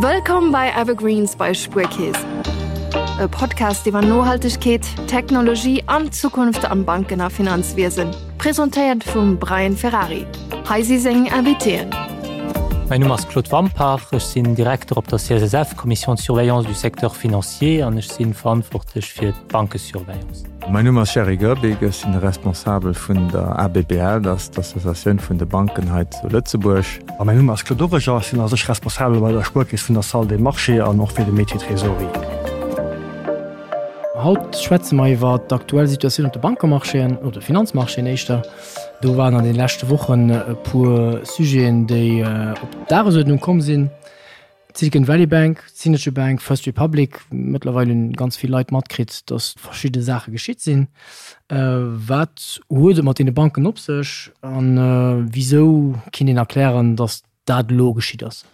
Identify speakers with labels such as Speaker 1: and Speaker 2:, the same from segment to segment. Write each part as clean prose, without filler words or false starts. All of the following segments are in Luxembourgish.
Speaker 1: Wëllkomm bei Evergreens bei Spuerkeess. E Podcast iwwer Nohaltegkeet, Technologie an d'Zukunft am Banken a Finanzwiesen. Presentéiert vum Brian Ferrari. Hei si seng Invitéen.
Speaker 2: Mäin Numm ass Claude Wampach, ech sinn Direkter op der CSSF, Commission de surveillance du secteur financier, an ech sinn verantwortlech fir d'Bankesurveillance.
Speaker 3: Mäin Numm ass Jerry Goerbig, ech sinn de Responsabel vun der ABBL, dat ass d'Associatioun vun de Banken hei zu Lëtzebuerg.
Speaker 4: A mäin Numm ass Claude Origer, ech sinn a sech Responsabel bei der Spuerkeess vun der Salle des Marchés an och fir de Métier Trésorerie.
Speaker 5: Haut schwätze mer iwwer d'aktuell Situatioun op de Bankemarchéen, oder de Finanzmarchéen éischter. Do waren an de leschte Wochen e puer Sujeten, déi op d'Dagesuerdnung komm sinn. D'Silicon Valley Bank, d'Signature Bank, First Republic. Mëttlerweil hunn ganz vill Leit matkritt, datt verschidde Saache geschitt sinn. Wat huet et mat deene Banken op sech a wisou kinnt een erklären, datt dat elo geschitt ass?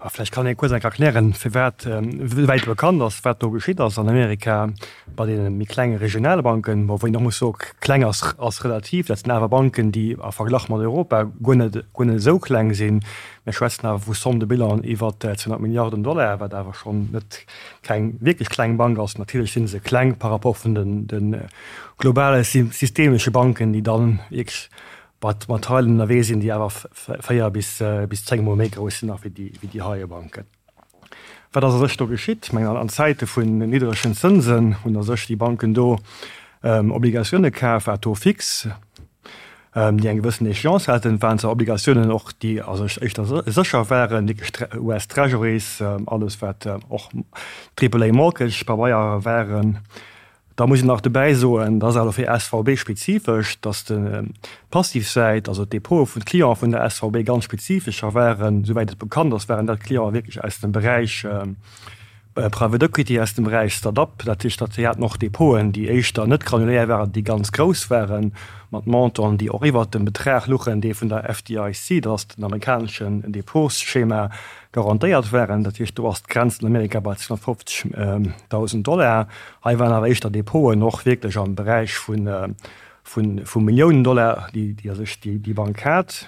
Speaker 4: Vläicht kann ee kuerz enk erklären, firwat, wéi wäit bekannt ass, wat do geschitt ass an Amerika bei deene méi klenge regionale Banken. Bon, wou een och muss soen, kleng ass, ass relativ, dat sinn awer Banken, déi a Verglach mat Europa guer net, guer net esou kleng sinn. Mir schwätzen awer vu Somme de bilan iwwer 200 Milliarden Dollar, wat awer schonn net keng wierklech kleng Bank ass. Natierlech si se kleng par rapport vun den, de globale systemesche Banken, déi dann wierklech Wat mat Teilen ënnerwee sinn, déi awer 4 bis 10 mol méi grouss sinn nach wéi déi heie Banken. Wat ass a sech do geschitt? Ech mengen, an Zäite vun niddregen Zënsen hunn a sech déi Banken do Obligatioune kaf, à taux fixe, déi eng gewëssen Échéance haten. Et waren zwar Obligatiounen och, déi a sech éischter sécher waren, wierklech US Treasuries, alles wat och Triple A Mortgage Pabeier waren. Da muss een nach dobäi soen, dat ass awer fir SVB spezifesch, datt d'Passivsäit, also d'Depote vun de Cliente vun der SVB ganz spezifescher waren. Souwäit et bekannt ass, waren dat Clienten wierklech aus dem Beräich Private Equity, aus dem Beräich Start-up. Dat heescht, datt si haten och Depoten, déi éischter net granulär waren, déi ganz grouss waren, mat Montanten, déi och iwwert dem Betrag luchen, dee vun der FDIC, dat ass den amerikaneschen Depotsschema, garantéiert waren. Dat heescht, do ass d'Grenz an Amerika bei 250.000 Dollar. Hei waren awer éischter Depoten och wierklech am Beräich vu Milliounen Dollar, déi a sech déi Bank hat.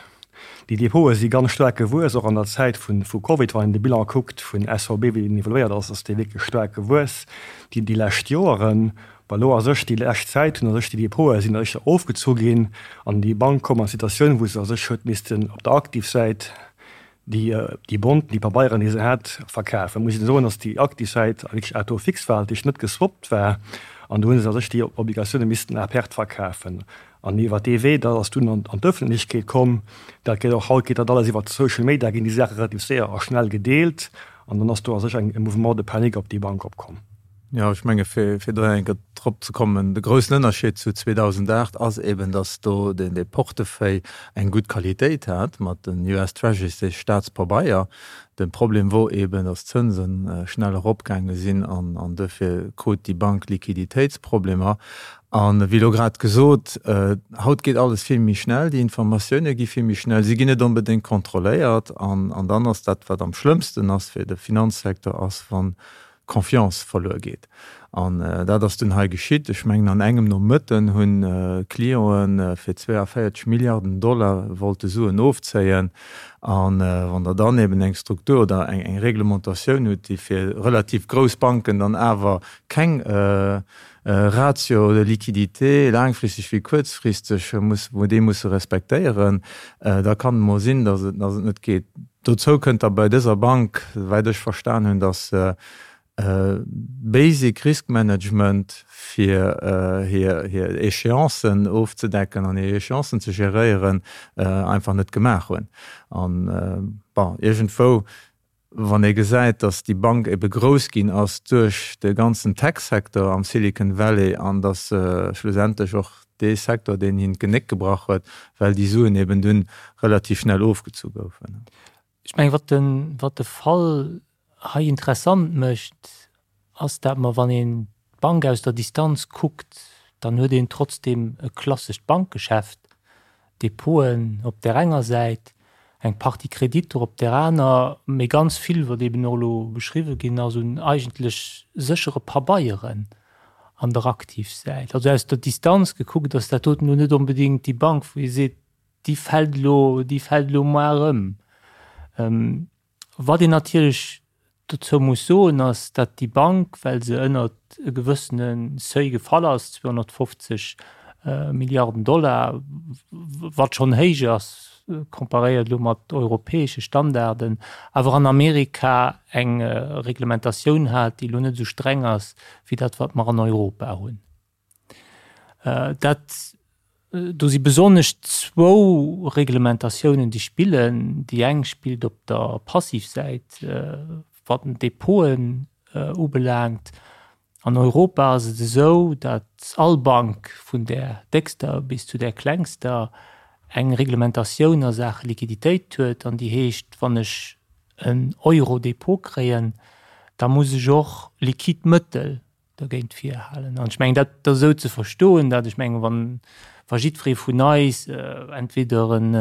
Speaker 4: Déi Depote si ganz staark gewuess, och an der Zäit vu Covid. Wann een de Bilan kuckt vun SVB, wéi deen evoluéiert ass, ass dee wierklech staark gewuess déi lescht Joeren. Well elo a sech déi lescht Zäit hunn a sech déi Depote sinn éischter ofgezu ginn an déi Bank koum an d'Situatioun, wou se a sech huet missten op der Aktivsäit déi Bonten, déi Pabeieren, déi se hat, verkafen. Muss een soen, datt déi aktiv Säit wierklech à taux fixe war, dat heescht net geswappt war, an do hu se a sech déi Obligatioune missten à perte verkafen. An iwwer dee Wee, dat ass dunn an d'Ëffentlechkeet komm, dat geet och haut, geet dat alles iwwer Social Media, ginn déi Saache relativ séier a schnell gedeelt, an dann ass do a sech e Mouvement de panique op déi Bank opkomm.
Speaker 3: Jo, ech menge fir do eng Kéier drop ze kommen, de groussen Ënnerscheed zu 2008 ass eben, datt do dee Portefeuille eng gutt Qualitéit hat mat den US Treasuries, de Staatspabeier. De Problem wor eben, datt d'Zënse schnell eropgaange sinn an duerfir krut déi Bank Liquiditéitsproblemer. An wéi elo grad gesot, haut geet alles vill méi schnell, déi Informatioune gi vill méi schnell, si ginn net onbedéngt kontrolléiert an dann ass dat, wat am schlëmmsten ass fir de Finanzsecteur, ass wann Confiance verluer geet. An dat ass dunn hei geschitt. Ech mengen an engem Nomëtten hunn Clienten fir 42 Milliarden Dollar wollte Suen ofzéien. A wann Der dann eben eng Struktur oder eng Reglementatioun hutt, déi fir relativ grouss Banken dann awer keng Ratio de liquidité, laangfristeg wéi kuerzfristeg, muss, wou déi musse respektéieren, da kann et emol sinn, datt et, datt et net geet. Dozou kënnt da bei dëser Bank, souwäit ech verstan hunn, datt se basic Risk Management fir hir, hir Échéancen ofzedecken an hir Échéancen ze geréieren, einfach net gemaach hunn. An, bon, iergendwou Wann ee gesäit, datt déi Bank ebe grouss ginn ass duerch de ganzen Tech-Secteur am Silicon Valley an datt se schlussendlech och dee Secteur, deen him d'Genéck gebrach huet, well déi Suen eben dunn relativ schnell ofgezu goufen.
Speaker 2: Ech mengen, wat de, wat de Fall hei interessant mécht, ass dat mer, wann een d'Bank aus der Distanz kuckt, dann huet een trotzdeem e klassescht Bankgeschäft, Depoten op där enger Säit, eng Partie Kreditter op där aner, mee ganz vill, wat eeben och elo beschriwwen ginn ass, un eigentlech séchere Pabeieren an der Aktivsäit. Also aus der Distanz gekuckt ass dat doten elo net onbedéngt déi Bank, wou ee seet, déi fält elo, déi fält elo moar ëm. Wat een natierlech. dozou muss soen, ass, datt déi Bank, well se ënnert e gewëssene Seuil gefall ass, 250 Milliarden Dollar, wat schonn héich ass, comparéiert elo mat europäesche Standarden, awer an Amerika eng Reglementatioun hat, déi elo net esou streng ass wéi dat, wat mer an Europa hunn. Dat, do si besonnesch zwou Reglementatiounen, déi spillen. Déi eng spillt op der Passivsäit, wat den Depoten ubelaangt. An Europa ass et esou, datt all Bank, vun där déckster bis zu där klengster, eng Reglementatioun a Saache Liquiditéit huet an déi heescht, wann ech en Euro Depot kréien, da muss ech och liquid Mëttel dergéint virhalen. An ech mengen, dat ass esou ze verstoen, datt ech mengen, wann, wa jiddweree vun eis entweder en,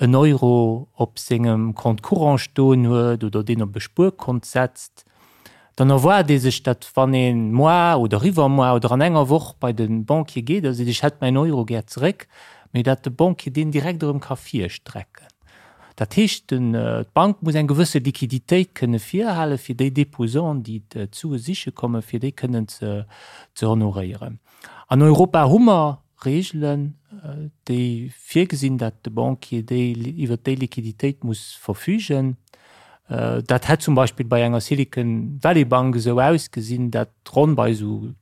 Speaker 2: en Euro op sengem Compte courant stoen huet oder deen op e Spuerkont setzt, dann erwaart ee sech, datt wann ee moar oder iwwermoar oder an enger Woch bei de Banquier geet a seet, ech hätt mäin Euro gär zeréck, mee datt de Banquier deen direkt erëm ka virstrecken. Dat heescht, d'Bank muss eng gewësse Liquiditéit kënne virhalen, fir déi Déposanten, déi d'Sue siche kommen, fir déi kënnen ze honoréieren. An Europa hu mer Reegelen, déi virgesinn, datt de Banquier déi iwwert déi Liquiditéit muss verfügen. Dat hätt zum Beispill bei enger Silicon Valley Bank esou ausgesinn, datt ronn bei esou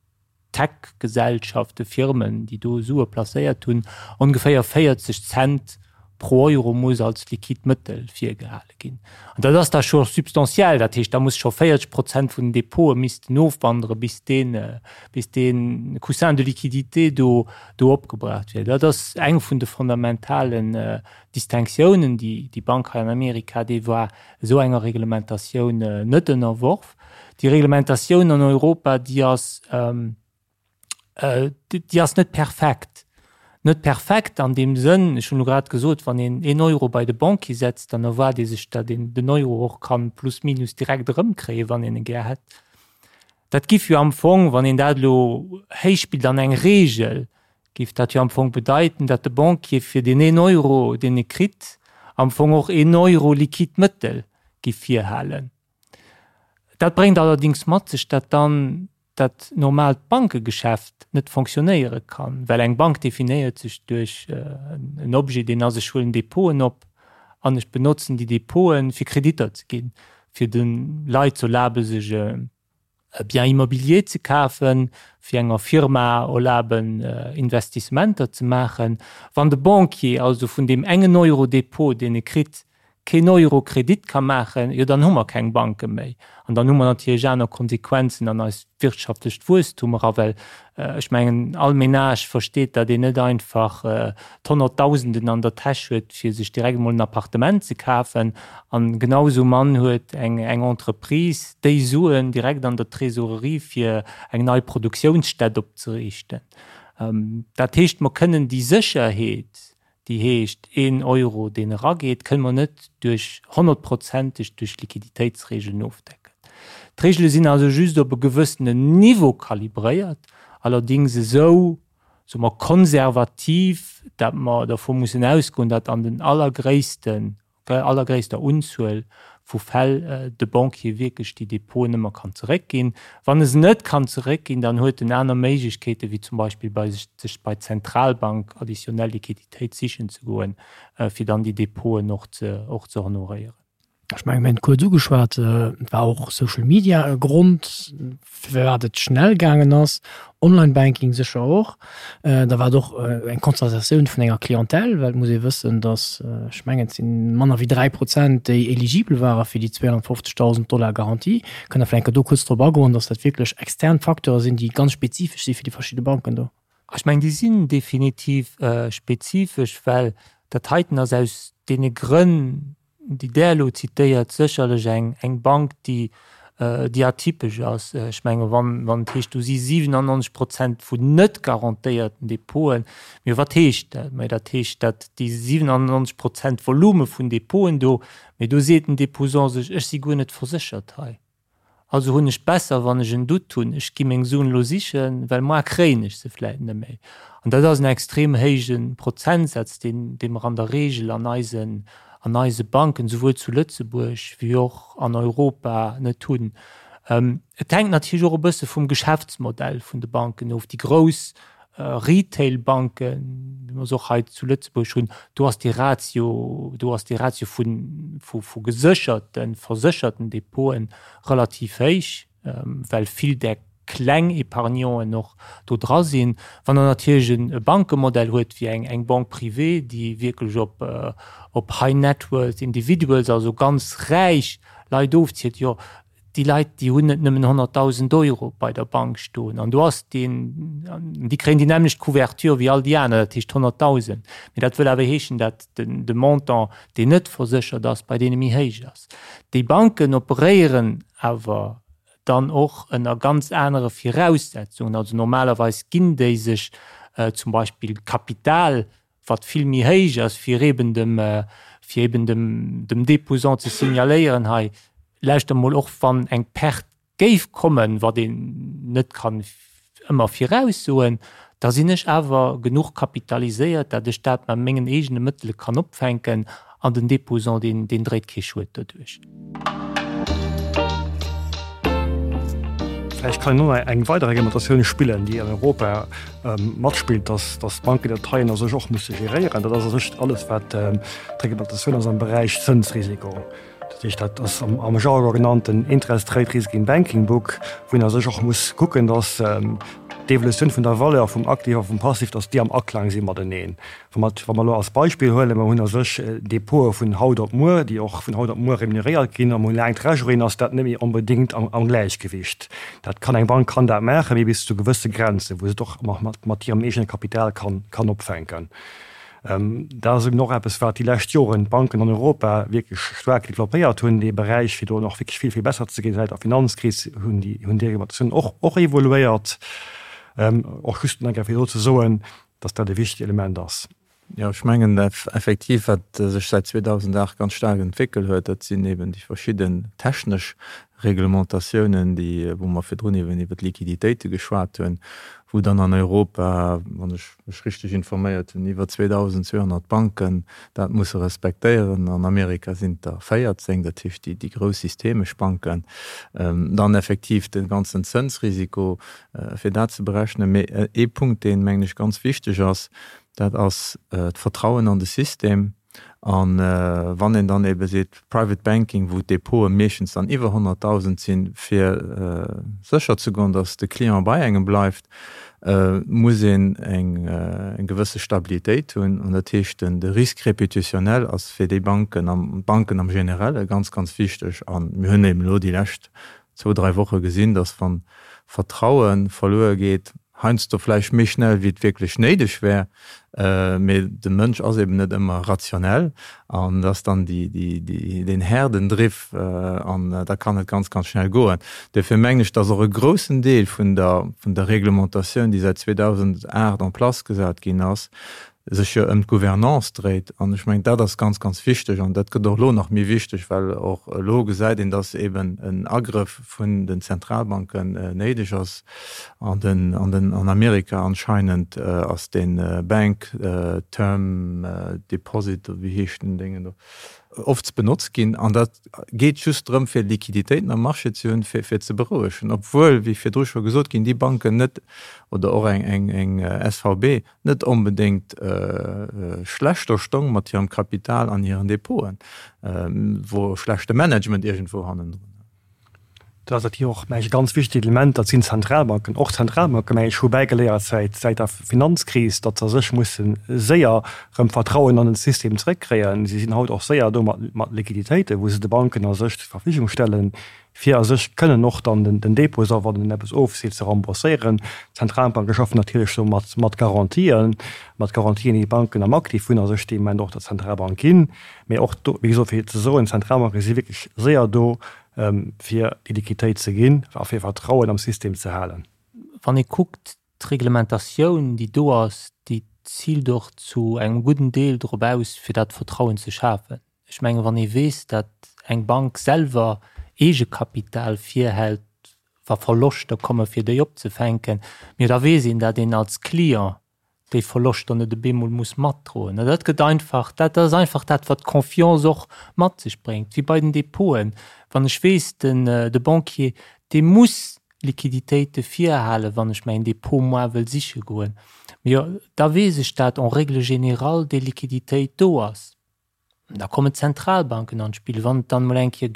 Speaker 2: Tech-Gesellschaften, Firmen, déi do Sue placéiert hunn, ongeféier 40 Cent pro Euro muss als liquid Mëttel virgehale ginn. An dat ass da scho substantiell, dat heescht, da muss scho 40 Prozent vun den Depote missten ofwandere bis deen, bis dee Coussin de liquidité do, do opgebraucht wier. Dat ass eng vun de fondamentalen Distinctiounen, déi déi Bank hei an Amerika, déi war esou enger Reglementatioun net ënnerworf. Déi Reglementatioun an Europa, déi ass, déi ass net perfekt. Net perfekt an deem Sënn, ech hunn elo grad gesot, wann een een Euro bei de Banquier setzt, dann erwaart ee sech, datt een den Euro och kann plus minus direkt erëmkréien, wann een e gär hätt. Dat giff jo am Fong, wann een dat elo héichspillt an eng Regel, giff dat jo am Fong bedeiten, datt de Banquier fir deen een Euro, deen e kritt, am Fong och een Euro liquid Mëttel giff virhalen. Dat bréngt allerdings mat sech, datt dann dat normaalt Bankegeschäft net fonctionnéiere kann, well eng Bank definéiert sech duerch en Objet, deen ass, ech huelen Depoten op an ech benotzen déi Depoten, fir Kreditter ze ginn, fir de Leit ze erlabe sech e Bien immobilier ze kafen, fir enger Firma erlaben Investissementer ze maachen. Wann de Banquier also vun deem engen Euro Depot, deen e kritt, keen Euro Kredit ka maachen, jo dann hu mer keng Banke méi. An dann hu mer natierlech aner Konsequenzen an eist wirtschaftlecht Wuesstum era, well ech mengen, all Ménage versteet, datt een net einfach d'Honnertdausenden an der Täsch huet, fir sech direkt emol en Appartement ze kafen. An genau esou mann huet eng Entreprise déi Suen direkt an der Trésorerie, fir eng nei Produktiounsstätt opzeriichten. Dat heescht, mer kënnen déi Sécherheet, déi heescht een Euro, deen erageet, kënne mer net duerch honnertprozenteg duerch Liquiditéitsregeln ofdecken. D'Regele sinn also just op e gewëssenen Niveau kalibréiert, allerdings esou, soe mer, konservativ, dat mer dervu mussen ausgoen, datt an den allergréissten der allergréisster Unzuel vu Fäll de Banquier wierklech déi Depoten ëmmer kann zeréckginn. Wann e se net kann zeréckginn, dann huet en aner Méiglechkeeten, wéi zum Beispill bei sech bei d'Zentralbank additionnel Liquiditéit sichen ze goen, fir dann déi Depoten och ze och ze honoréieren.
Speaker 5: Ech mengen, mir hunn et kuerz ugeschwat, et war och Social Media e Grond, firwat et schnell gaangen ass, Online-Banking sécher och. Da war et och eng Konstatatioun vun enger Clientèle, well et muss ee wëssen, datt, ech mengen, et si manner wéi 3 Prozent, déi eligibel ware fir déi 250.000 Dollar Garantie. Kënnt Der vläicht eng Kéier do kuerz drop agoen, datt dat wierklech extern Facteure sinn, déi ganz spezifesch si fir déi verschidde Banken do?
Speaker 2: Ech mengen, déi sinn definitiv spezifesch, well dat heiten ass aus deene Grënn, déi Der elo zitéiert, sécherlech eng, eng Bank, déi, déi atypesch ass. Ech menge wann, wann et heescht, do si 97 Prozent vun net garantéierten Depoten, mee wat heescht dat? Mä dat heescht, datt déi 97 Prozent Volume vun Depoten do, mee do seet den Deposant sech, ech si guer net verséchert hei. Also hunn ech besser, wann ech en Doute hunn, ech gi meng Suen elo sichen, well moar kréien ech se vläit net méi. An dat ass en extrem héije Prozentsaz, deen, dee mer an der Regel an eisen, an eise Banken, souwuel zu Lëtzebuerg wéi och an Europa, net hunn. Et hänkt natierlech och e bësse vum Geschäftsmodell vun de Banken of. Déi grouss Retail-Banken, wéi mer se och hei zu Lëtzebuerg hunn, do ass dee Ratio, do ass dee Ratio vu, vu gesécherten, versécherten Depoten relativ héich, well vill där kleng Épargnanten och do dra sinn. Wann Der natierlech e Bankemodell huet wéi eng, eng Banque privée, déi wierklech op, op High Net Worth Individuals, also ganz räich Leit ofzielt, jo, déi Leit, déi hunn net nëmmen 100.000 Euro bei der Bank stoen an do ass deen, déi kréien déi nämmlecht Couverture wéi all déi aner, dat heescht 100.000. Mee dat wëll awer heeschen, dat den, de Montant, deen net verséchert ass, bei deene méi héich ass. Déi Banken operéieren awer dann och ënner ganz anere Viraussetzungen. Also normalerweis ginn déi sech zum Beispill Kapital, wat vill méi héich ass, fir eben dem, fir eben dem, dem Déposant ze signaléieren, hei, lauschter mol, och wann eng Perte géif kommen, wat een net kann ëmmer viraussoen, da sinn ech awer genuch kapitaliséiert, dat ech dat mat mengen eegene Mëttele kann opfänken an den Déposant, deen, deen dréit kee Schued doduerch.
Speaker 4: Vläicht kann een och nach eng weider Reglementatioun spillen, déi an Europa matspillt, dass d'Banken dat heien a sech och musse geréieren. Dat ass a sech alles, wat d'Reglementatioun ass am Beräich Zënsrisiko. Dat heescht, dat ass am Jargon genannt den Interest Rate Risk in Banking Book, wou een a sech och muss kucken, dass d'Evolutioun vun der Valeur vum Aktiv a vum Passiv, dass déi am Aklang si mateneen. Wa mer, wa mer elo als Beispill huelen, mer hunn a sech Depote vun haut op muer, déi och vun haut op muer remuneréiert ginn, a mer hunn laang Treasuryen, ass dat net méi onbedéngt am, am Gläichgewicht. Dat kann, eng Bank kann dat maachen, mee bis zu gewësse Grenzen, wou se et och mat, mat hirem eegene Kapital kann, kann opfänken. Dat ass eben och eppes, wat déi lescht Joren d'Banken an Europa wierklech staark developpéiert hunn, dee Beräich, fir do nach wierklech vill, vill besser ze ginn. Säit der Finanzkris hunn déi, hunn déi Reglementatiounen och, och evoluéiert. Och just nach eng Kéier fir do ze soen, dass dat e wichtegt Element ass.
Speaker 3: Jo, ech mengen effektiv, wat sech säit 2008 ganz staark entwéckel huet, dat sinn eben déi verschidden technesch Reglementatiounen, déi, wou mer virdrun eben iwwert d'Liquiditéite geschwat hunn, wou dann an Europa, wann ech mech richteg informéiert hunn, iwwer 2.200 Banken dat musse respektéieren. An Amerika sinn et der 14, dat heescht déi grouss systemesch Banken. Dann effektiv de ganzen Zënsrisiko, fir dat ze berechnen. Mee ee Punkt, deen, mengen ech, ganz wichteg ass, dat ass d'Vertrauen an de System. A wann een dann ebe seet, Private Banking, wou d'Depote meeschtens dann iwwer 100.000 sinn, fir sécher ze goen, datt de Client bei engem bleift, muss een eng gewësse Stabilitéit hunn. An dat heescht, de Risque répétitionnel ass fir déi Banken, d'Banken am Generelle ganz, ganz wichteg. A mir hunn eben elo déi lescht zwou, dräi Woche gesinn, datt wann Vertraue verluer geet, heiansdo vläicht méi schnell wéi et wierklech néideg wär, mee de Mënsch ass eben net ëmmer rationell an et ass dann deen Herdendriff an da kann et ganz, ganz schnell goen. Duerfir mengen ech, datt och e groussen Deel vun der, vun der Reglementatioun, déi säit 2008 en place gesat ginn ass, sech jo ëm d'Gouvernance dréit. An ech mengen, dat ass ganz, ganz wichteg. An dat gëtt och elo nach méi wichteg, well och elo gesäit een, dass eben en Agrëff vun den Zentralbanken néideg ass. An den, an den, an Amerika anscheinend ass dee Bank Term Deposit, oder wéi heescht den Déngen do, oft benotzt ginn. An dat geet just drëm, fir Liquiditéiten am Marché ze hunn, fir, fir ze berouegen. Obwuel, wéi virdru scho gesot ginn, déi Banken net, oder och eng, eng, eng SVB, net onbedéngt schlechter stong mat hirem Kapital an hiren Depoten, wor schlechte Management iergendwou hannendrun.
Speaker 4: Dat ass natierlech och, mengen ech, e ganz wichtegt Element, dat sinn d'Zentralbanken. Och d'Zentralbanken, mengen ech, hu bäigeléiert säit säit der Finanzkris, datt se a sech musse séier erëm Vertrauen an den System zrëckkréien. Si sinn haut och séier do mat mat Liquiditéiten, wou se de Banken a sech zur Verfügung stellen, fir a sech kënnen och dann den Dépôt, a wann en eppes ofseet, ze rembourséieren. D'Zentralbanke schaffen natierlech do mat mat Garantien, mat Garantien, déi d'Banken am Aktiv hunn a sech dee Moment och der Zentralbank ginn. Mee och do, wéi gesot, fir ze soen, d'Zentralbanke si wierklech séier do, fir déi Liquiditéit ze ginn a fir Vertrauen am System ze halen.
Speaker 2: Wann ee kuckt, d'Reglementatioun, déi do ass, déi ziilt och zu engem gudden Deel drop aus, fir dat Vertrauen ze schafen. Ech mengen, wann ee weess, datt eng Bank selwer Eegekapital virhält, wa Verloschter kommen, fir déi opzefänken, jo da weess een, datt een als Client. déi Verloschter net op eemol muss matdroen. An dat gëtt einfach, dat ass einfach dat, wat d'Confiance och mat sech bréngt, wéi bei den Depoten. Wann ech weess, den, de Banquier, dee muss Liquiditéite virhalen, wann ech mäin Depot moar wëll siche goen, jo, da weess ech, dat en règle générale déi Liquiditéit do ass. Da kommen d'Zentralbanken an d'Spill. Wann et dann emol eng Kéier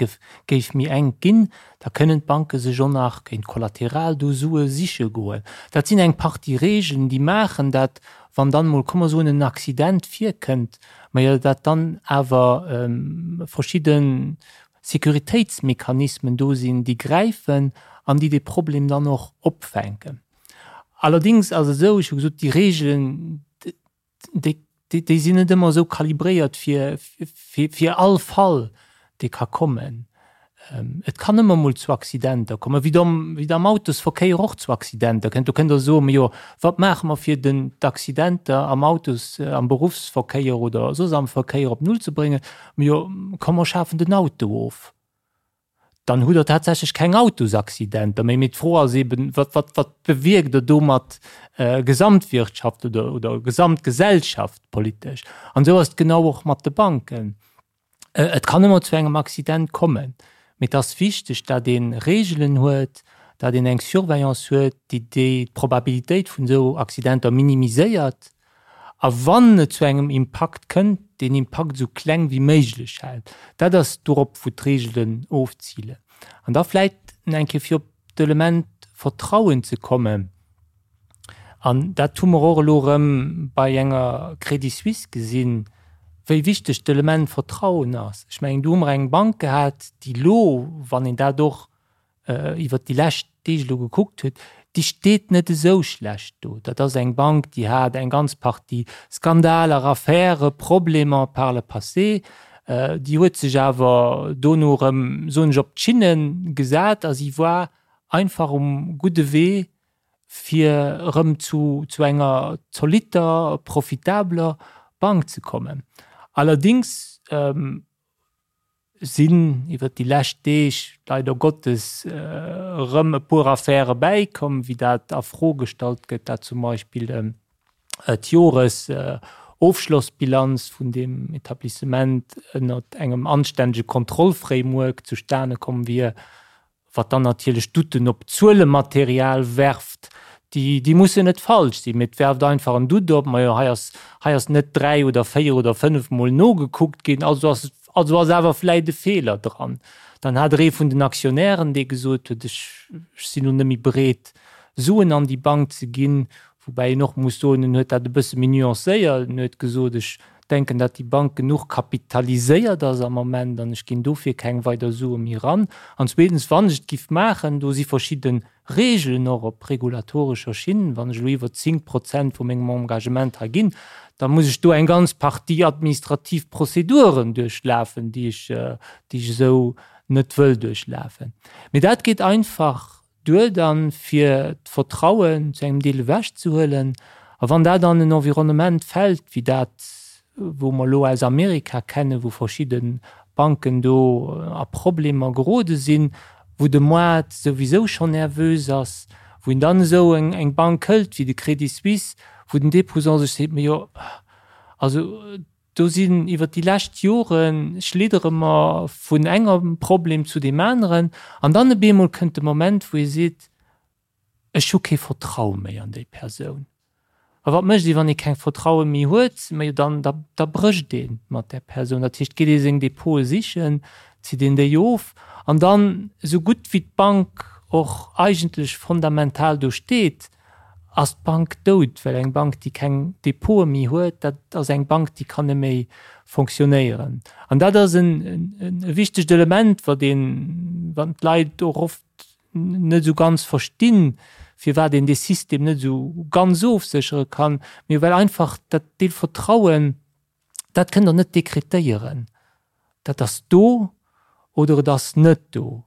Speaker 2: géif méi enk ginn, da kënnen d'Banke sech och nach géint Kollateral do Sue siche goen. Dat sinn eng Partie Regeln, déi maachen, dat wann dann emol, komm mer soen, en Accident virkënnt, majo dat dann awer verschidde Sécuritéitsmechanismen do sinn, déi gräifen an déi dee Problem dann och opfänken. Allerdéngs ass et esou, ech hu gesot, déi Regeln, déi, déi sinn net ëmmer esou kalibréiert fir, fir, fir all Fall, dee ka kommen. Et kann ëmmer mol zu Accidenter kommen, wéi et am, wéi et am Autosverkéier och zu Accidenter kënnt. Do kënnt Der soen, Majo, wat maache mer fir den, d'Accidenter am Autos, am Beruffsverkéier oder soss am Verkéier op Null ze bréngen? Majo, komm mer schafen den Auto of. Dann hutt Der tatsächlech keng Autosaccidenter méi. Mee d'Fro ass eben, wat, wat, wat bewierkt Der domat gesamtwirtschaft oder, oder gesamtgesellschaftpolitesch? An esou ass et genau och mat de Banken. Et kann ëmmer zu engem Accident kommen, mee et ass wichteg, datt ee Reegelen huet, datt een eng Surveillance huet, déi déi d'Probabilitéit vun esou Accidenter minimiséiert a wann et zu engem Impakt kënnt, deen Impakt esou kleng wéi méiglech hält. Dat ass dorop, wou d'Reegelen ofzilen. An da vläicht nach eng Kéier fir op d'Element Vertrauen ze kommen, an dat hu mer och elo erëm bei enger Credit Suisse gesinn, wéi wichteg d'Element Vertrauen ass. Ech mengen, do hu mer eng Bank gehat, déi elo, wann een dat och iwwert déi lescht Deeg elo gekuckt huet, déi steet net esou schlecht do. Dat ass eng Bank, déi hat eng ganz Partie Skandaler, Affäre, Problemer par le passé. Déi huet sech awer dono erëm, soen ech, op d'Schinne gesat a si war einfach um gudde Wee, fir erëm zu zu enger zolitter, profitabler Bank ze kommen. Allerdéngs sinn iwwert déi lescht Deeg leider Gottes erëm e puer Affäre bäikomm, wéi dat a Fro gestallt gëtt, dat zum Beispill d'Joresofschlossbilanz vun deem Etablissement ënnert engem anstännege Kontrollframework zustane komm wier, wat dann natierlech Douten op d'Zuelematerial werft, déi, déi mussen net falsch sinn, mee et werft einfach en Doute op, majo hei ass, hei ass net 3 oder 4 oder 5 mol nogekuckt ginn, also ass, also ass awer vläit e Feeler dran. Dann hat der ee vun den Aktionären, dee gesot huet, ech, ech sinn elo net méi bereet Suen an déi Bank ze ginn, woubäi een och muss soen, en huet dat e bësse méi nuancéiert, en huet gesot, ech denken, datt déi Bank genuch kapitaliséiert ass am Moment an ech ginn dofir keng weider Sue méi eran. An zweetens, wann ech et giff maachen, do si verschidde Regeln och op regulatorescher Schinn, wann ech elo iwwer 10 Prozent vu mengem Engagement hei ginn, da muss ech do eng ganz Partie administrativ Prozeduren duerchlafen, déi ech, déi ech esou net wëll duerchlafen. Mee dat geet einfach duer dann, fir d'Vertrauen zu engem Deel ewechzehuelen. A wann dat an en Environnement fält wéi dat, wou mer elo aus Amerika kennen, wou verschidde Banken do a Problemer gerode sinn, wou de Moart souwisou schonn nervös ass, wou een dann esou eng Bank hëlt wéi de Credit Suisse, wou den Déposant sech seet, Majo, also Do sinn iwwer déi lescht Jore schliddere mer vun engem Problem zu deem aneren an dann op eemol kënnt de Moment, wou ee seet, ech hu kee Vertraue méi an déi Persoun. A wat mécht ee, wann ee keng Vertraue méi huet? Majo, dann, da, da brécht ee mat där Persoun. Dat heescht, geet ee seng Depote sichen, zitt een déi of an dann, esou gutt wéi d'Bank och eigentlech fondamental do steet, Ass d'Bank dout? Well eng Bank, déi keng Depote méi huet, dat ass eng Bank, déi kann net méi fonctionnéieren. An dat ass e wichtegt Element, wat een, wat d'Leit och oft net esou ganz verstinn, firwat een dee System net esou ganz ofséchere kann, mee well einfach dat Deel Vertrauen, Dat kënnt Der net dekretéieren. Dat ass do oder et ass net do.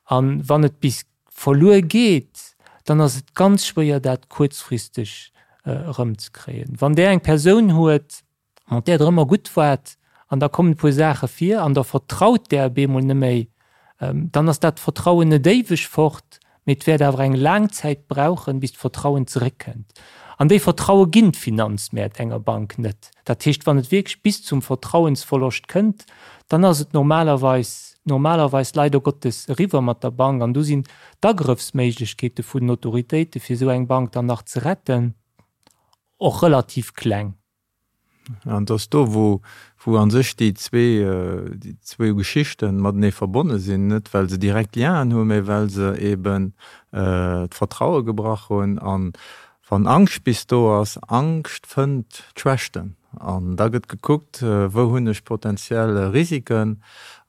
Speaker 2: A wann et bis verluer geet, dann ass et ganz schwéier, dat kuerzfristeg erëmzekréien. Wann Der eng Persoun huet, mat där Der ëmmer gutt waart, an da kommen e puer Saache vir an da vertraut där op eemol net méi, dann ass dat Vertrauen net éiweg fort, mee et wäert awer eng laang Zäit brauchen, bis d'Vertrauen zeréckkënnt. An déi Vertraue ginn d'Finanzmäert enger Bank net. Dat heescht, wann et wierklech bis zum Vertrauensverloscht kënnt, dann ass et normalerweis, normalerweis leider Gottes eriwwer mat der Bank. An do sinn d'Agrëffsméiglechkeete vun den Autoritéite fir esou eng Bank dann nach ze retten och relativ kleng.
Speaker 3: An et ass do, wou, wou a sech déi zwee, déi zwou Geschichte matenee verbonne sinn, net well se direkt Lienen hunn, mä well se eben d'Vertraue gebrach hunn. An wann Angscht bis do ass, Angscht fënnt d'Schwächten. An da gëtt gekuckt, wou hunn ech potenziell Risiken.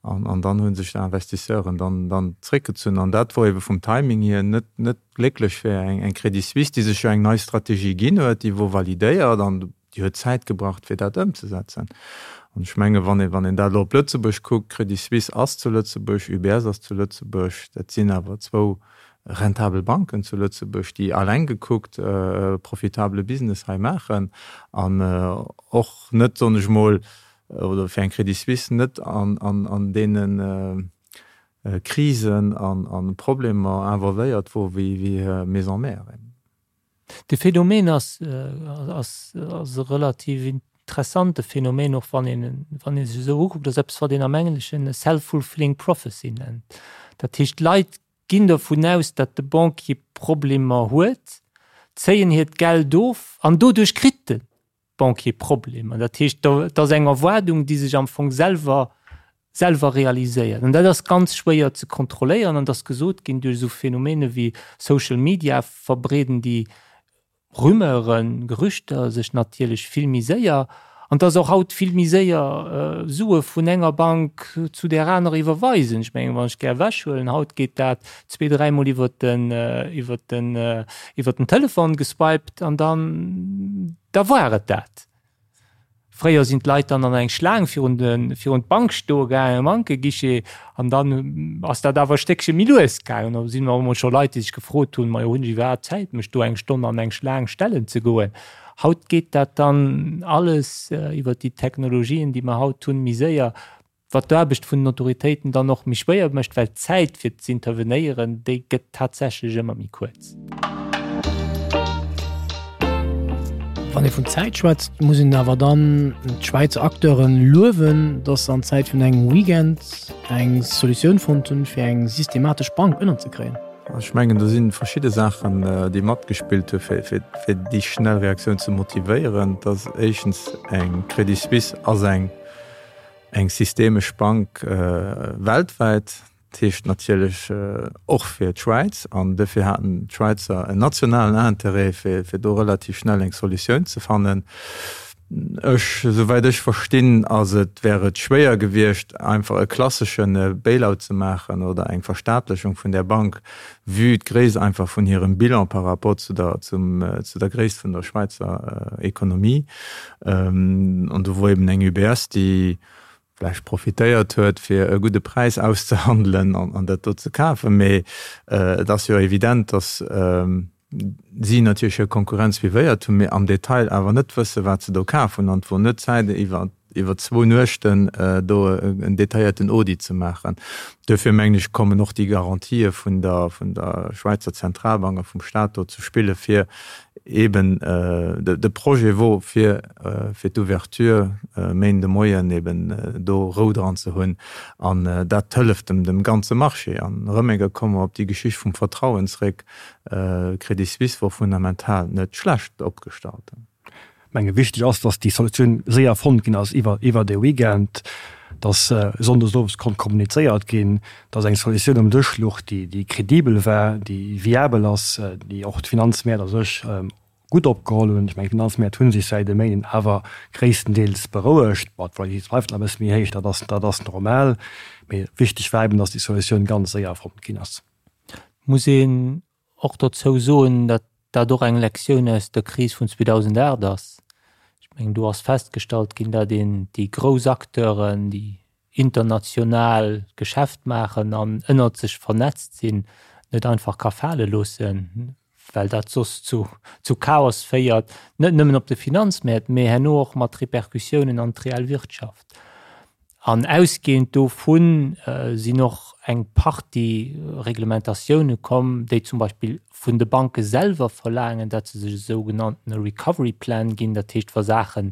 Speaker 3: An, an dann hu sech d'Investisseuren dann, dann zréckgezunn. An dat wor ebe vum Timing hier net, net glécklech fir eng, eng Credit Suisse, déi sech jo eng nei Strategie ginn huet, déi wor validéiert an déi huet Zäit gebraucht, fir dat ëmzesetzen. An ech menge wann ee, wann een dat elo op Lëtzebuerg kuckt, Credit Suisse ass zu Lëtzebuerg, UBS ass zu Lëtzebuerg, dat sinn awer zwou rentabel Banken zu Lëtzebuerg, déi alleng gekuckt e profitabele Business hei maachen an och net, soen ech mol, oder fir eng Credit Suisse net an, an, an deene Krisen an, an Problemer involvéiert wor wéi, wéi Maison mère.
Speaker 2: De Phänomen ass, ass, ass e relativ interessante Phänomen, och wann een, wann ee sech esou ukuckt, ass eppes, wat een am Engleschen e self-fulfilling prophecy nennt. Dat heescht, d'Leit ginn dovun aus, datt de Banquier Problemer huet, zéien hiert Geld of an doduerch kritt de Banquier Problemer. Dat heescht, dat ass eng Erwaardung, déi sech am Fong selwer, selwer realiséiert. An dat ass ganz schwéier ze kontrolléieren. An et ass gesot ginn, duerch esou Phänomene wéi Social Media verbreeden déi Rumeuren, Gerüchter sech natierlech vill méi séier. An et ass och haut vill méi séier, Sue vun enger Bank zu där anerer iwwerweisen. Ech mengen, wann ech gär ewechhuelen, haut geet dat zwee, dräimol iwwer den, iwwer den, iwwer den Telefon geswiped an dann, da war et dat. Fréier sinn d'Leit dann an eng Schlaang virun de, virun d'Bank stoe gaangen, Bankeguichet, an dann ass dat awer e Stéckche méi lues gaangen. Da sinn och emol scho Leit, déi sech gefrot hunn, Majo, hunn ech iwwerhaapt Zäit, mech do eng Stonn an eng Schlaang stellen ze goen? Haut geet dat dann alles iwwer déi Technologien, déi mer haut hunn, méi séier. Wat d'Aarbecht vun den Autoritéiten dann och méi schwéier mécht, well d'Zäit fir z'intervenéieren, déi gëtt tatsächlech ëmmer méi kuerz.
Speaker 5: Wann ee vun Zäit schwätzt, muss een awer dann d'Schwäizer Acteure luewen, datt se an Zäit vun engem Weekend eng Solutioun fonnt hunn, fir eng systematesch Bank ënnerzekréien.
Speaker 3: Ech mengen, do si verschidde Saachen, déi matgespillt hu fir déi schnell Reaktioun ze motivéieren. Dat ass éischtens eng Credit Suisse ass eng Eng systemesch Bank weltwäit, dat heescht natierlech och fir d'Schwäiz. An dofir haten d'Schwäizer en nationalen Interêt, fir do relativ schnell eng Solutioun ze fannen. Ech, souwäit ech verstinn, ass et, wär et schwéier gewiescht, einfach e klassesche Bailout ze maachen oder eng Verstaatlechung vun där Bank, vue d'Gréisst einfach vun hirem Bilan par rapport zu der, zum, zu der Gréisst vun der Schwäizer Ekonomie. An do wor eben eng UBS, déi vläicht profitéiert huet, fir e gudde Präis auszehandelen an dat do ze kafen. Mee et ass jo evident, datt si natierlech hir Konkurrenz suivéiert hunn, mee am Detail awer net wësse wat se do kaf hunn. An et wor net Zäit iwwer iwwer zwou Nuechten do en detailléierten Audit ze maachen. Duerfir mengen ech, kommen och déi Garantië vun der, vun der Schwäizer Zentralbank a vum Stat do ze spille fir eben de Projet wor fir, fir d'Ouverture Méinden de Moien eben do Rou dran ze hunn. An dat hëlleft dem, dem ganze Marché. An erëm eng Kéier komme mer op déi Geschicht vum Vertrauen zréck, Credit Suisse wor fundamental net schlecht opgestallt.
Speaker 4: Menge wichteg ass, datt déi Solutioun séier fonnt ginn ass iwwer iwwer de Weekend, datt sonndes owes konnt kommunizéiert ginn, datt eng Solutioun um Dësch luch, déi déi kredibel war, déi viabel ass, déi och d'Finanzmäert a sech gutt opgeholl hunn. Ech mengen, d'Finanzmäert hu sech säit e Méinden awer gréisstendeels berouegt. Bon, d'Volatilitéit bleift nach e bësse méi héich, dat ass dat ass normal. Mee wichteg war eben, datt déi Solutioun ganz séier fonnt ginn ass.
Speaker 2: Muss een och dozou soen, datt dat och eng Lektioun aus der Kris vun 2008 ass. Ech mengen, do ass festgestallt ginn, datt een déi grouss Acteuren, déi international Geschäft maachen an ënnert sech vernetzt sinn, net einfach ka fale loossen, well dat soss zu zu Chaos féiert, net nëmmen op de Finanzmäert, mee herno och mat Repercussiounen an d'reell Wirtschaft. An ausgehend dovu sinn och eng Partie Reglementatioune komm, déi zum Beispill vun de Banke selwer verlaangen, datt se sech e sougenanntene Recovery Plan ginn, dat heescht wa Saache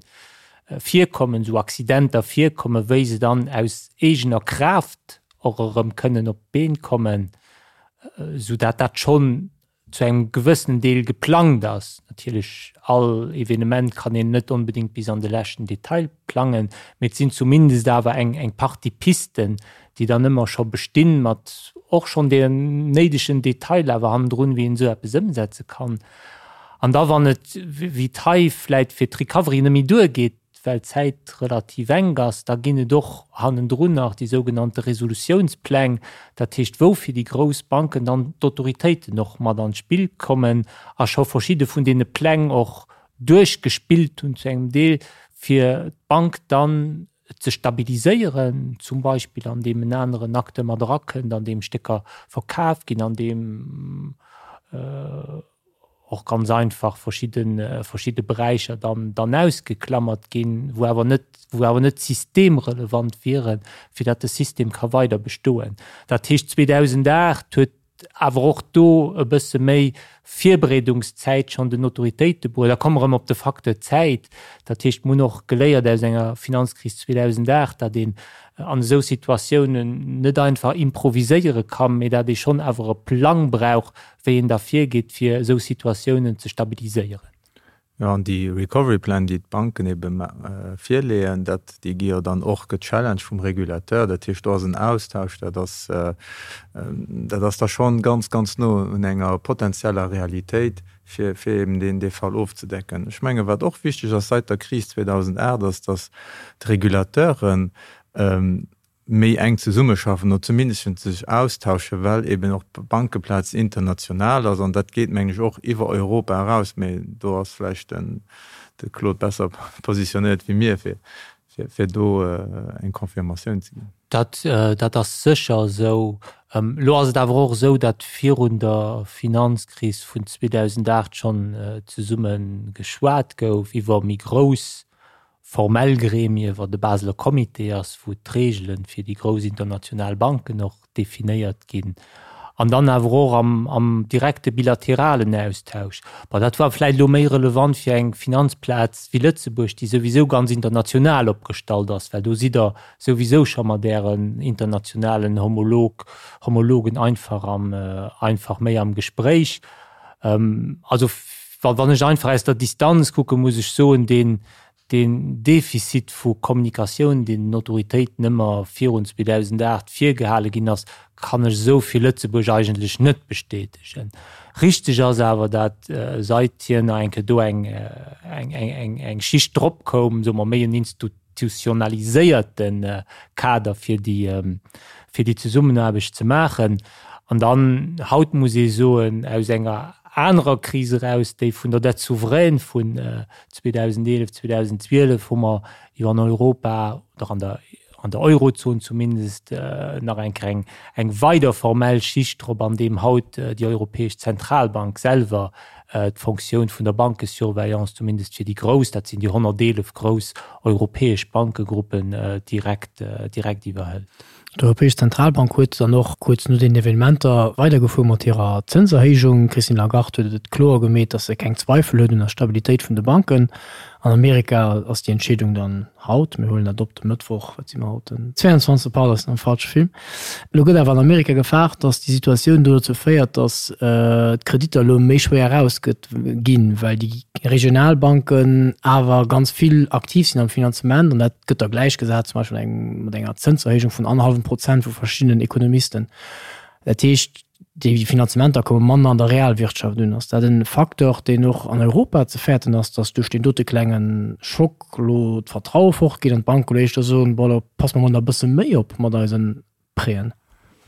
Speaker 2: virkommen, esou Accidenter virkommen, wéi se dann aus eegener Kraaft och erëm kënnen op d'Been kommen, soudatt dat schonn zu engem gewëssenen Deel geplangt ass. Natierlech, all Evenement kann een net onbedéngt bis an de leschten Detail plangen, mee et sinn zumindest awer eng eng Partie Pisten, déi dann ëmmer scho bestinn, mat och schonn den néidegen Detailer awer hannendrun, wéi een esou eppes ëmsetze kann. An da wann et, wéi et hei vläicht fir d'Recovery net méi duergeet, well d'Zäit relativ enk ass, da ginn et och hannendrun nach déi sougenannte Resolutiounspläng, dat heescht wou fir déi grouss Banken dann d'Autoritéiten och mat an d'Spill kommen a scho verschidde vun deene Pläng och duerchgespillt hunn zu engem Deel, fir d'Bank dann ze stabiliséieren, zum Beispill andeem en aneren Acteur mat erakënnt, andeem Stécker verkaf ginn, andeem och ganz einfach verschidde verschidde Beräicher dann dann ausgeklammert ginn, wou awer net wou awer net systemrelevant wieren, fir datt de System ka weider bestoen. Dat heescht 2008 huet awer och do e bësse méi Virbereedungszäit schonn den Autoritéite bruet. Da komme mer erëm op de Facteur Zäit. Dat heescht, mer hunn och geléiert aus enger Finanzkris 2008, datt een an esou Situatiounen net einfach improviséiere kann, mee datt ee schonn awer e Plang brauch, wéi een da virgeet, fir esou Situatiounen ze stabiliséieren.
Speaker 3: Jo, an déi Recovery Plan, déi d'Banken ebe virleeën, dat, déi gi jo dann och gechallenged vum Régulateur. Dat heescht, do ass en Austausch, dat ass, dat ass da schonn ganz, ganz no un enger potenzieller Realitéit, fir, fir eben deen, dee Fall ofzedecken. Ech mengen, wat och wichteg ass seit der Kris 2008, ass, datt d'Régulateuren méi enk zesummeschaffen oder zumindest sech austauschen, well eben och d'Bankeplaz international ass an dat geet, mengen ech, och iwwer Europa eraus. Mee do ass vläicht den de Claude besser positionéiert wéi mir, fir, fir do eng Confirmatioun ze ginn.
Speaker 2: Dat, dat ass sécher esou. Elo ass et awer och esou, datt virun der Finanzkris vun 2008 schonn zesumme geschwat gouf iwwer méi grouss formell Gremie, wat de Baseler Comité ass, wou d'Reegele fir déi grouss international Banken och definéiert ginn, an dann awer och am, am direkte bilateralen Austausch. Bon, dat war vläicht elo méi relevant fir eng Finanzplaz wéi Lëtzebuerg, déi souwisou ganz international opgestallt ass, well do sidd Der souwisou scho mat Ären internationalen Homolog, Homologen einfach am, einfach méi am Gespréich. Also wann ech einfach aus der Distanz kucken, muss ech soen, deen, deen Defizit vu Kommunikatioun, deen den Autoritéiten ëmmer virun 2008 virgehale ginn ass, kann ech esou fir Lëtzebuerg eigentlech net bestätegen. Richteg ass awer, dat seit hir nach eng Kéier do eng, eng, eng, eng Schicht drop koum, soe mer méi en institutionaliséierte Kader fir déi, fir déi Zesummenaarbecht ze maachen. An dann, haut muss ee soen, aus enger anerer Kris eraus, déi vun der Dette souveraine vun 2011, 2012, hu mer jo an Europa oder an der, an der Eurozon zumindest nach eng Kéier eng, eng weider formell Schicht drop, andeem haut déi Europäesch Zentralbank selwer d'Fonctioun vun der Bankesurveillance, zumindest fir déi grouss, dat sinn déi 111 grouss europäesch Bankegruppen, direkt, direkt iwwerhëlt.
Speaker 5: D'Europäesch Zentralbank huet dann och kuerz no den Evenementer weidergefuer mat hirer Zënserhéijung. D'Christine Lagarde huet et kloer gemeet, datt se keng Zweifel huet un der Stabilitéit vun de Banken. An Amerika ass déi Entscheedung dann haut, mir huelen dat op de Mëttwoch, wat si mer haut, den 22. Pardon, ech sinn am falsche Film. Elo gëtt awer an Amerika gefaart, datt déi Situatioun do dozou féiert, datt d'Kreditter elo méi schwéier erausgëtt ginn, well déi regional Banken awer ganz vill aktiv sinn am Finanzement an dat gëtt da gläichgesat zum Beispill eng mat enger Zënserhéijung vun annerhallwem Prozent vu verschiddenen Ekonomisten. Dat heescht, déi Finanzementer komme manner an der Realwirtschaft un. Ass dat e Facteur, deen och an Europa ze fäerten ass, datt duerch deen dote klenge Schock elo d'Vertraue fortgeet an d'Banke elo éischter soen, bon, elo passe mer mol nach e bësse méi op mat eisen Préen.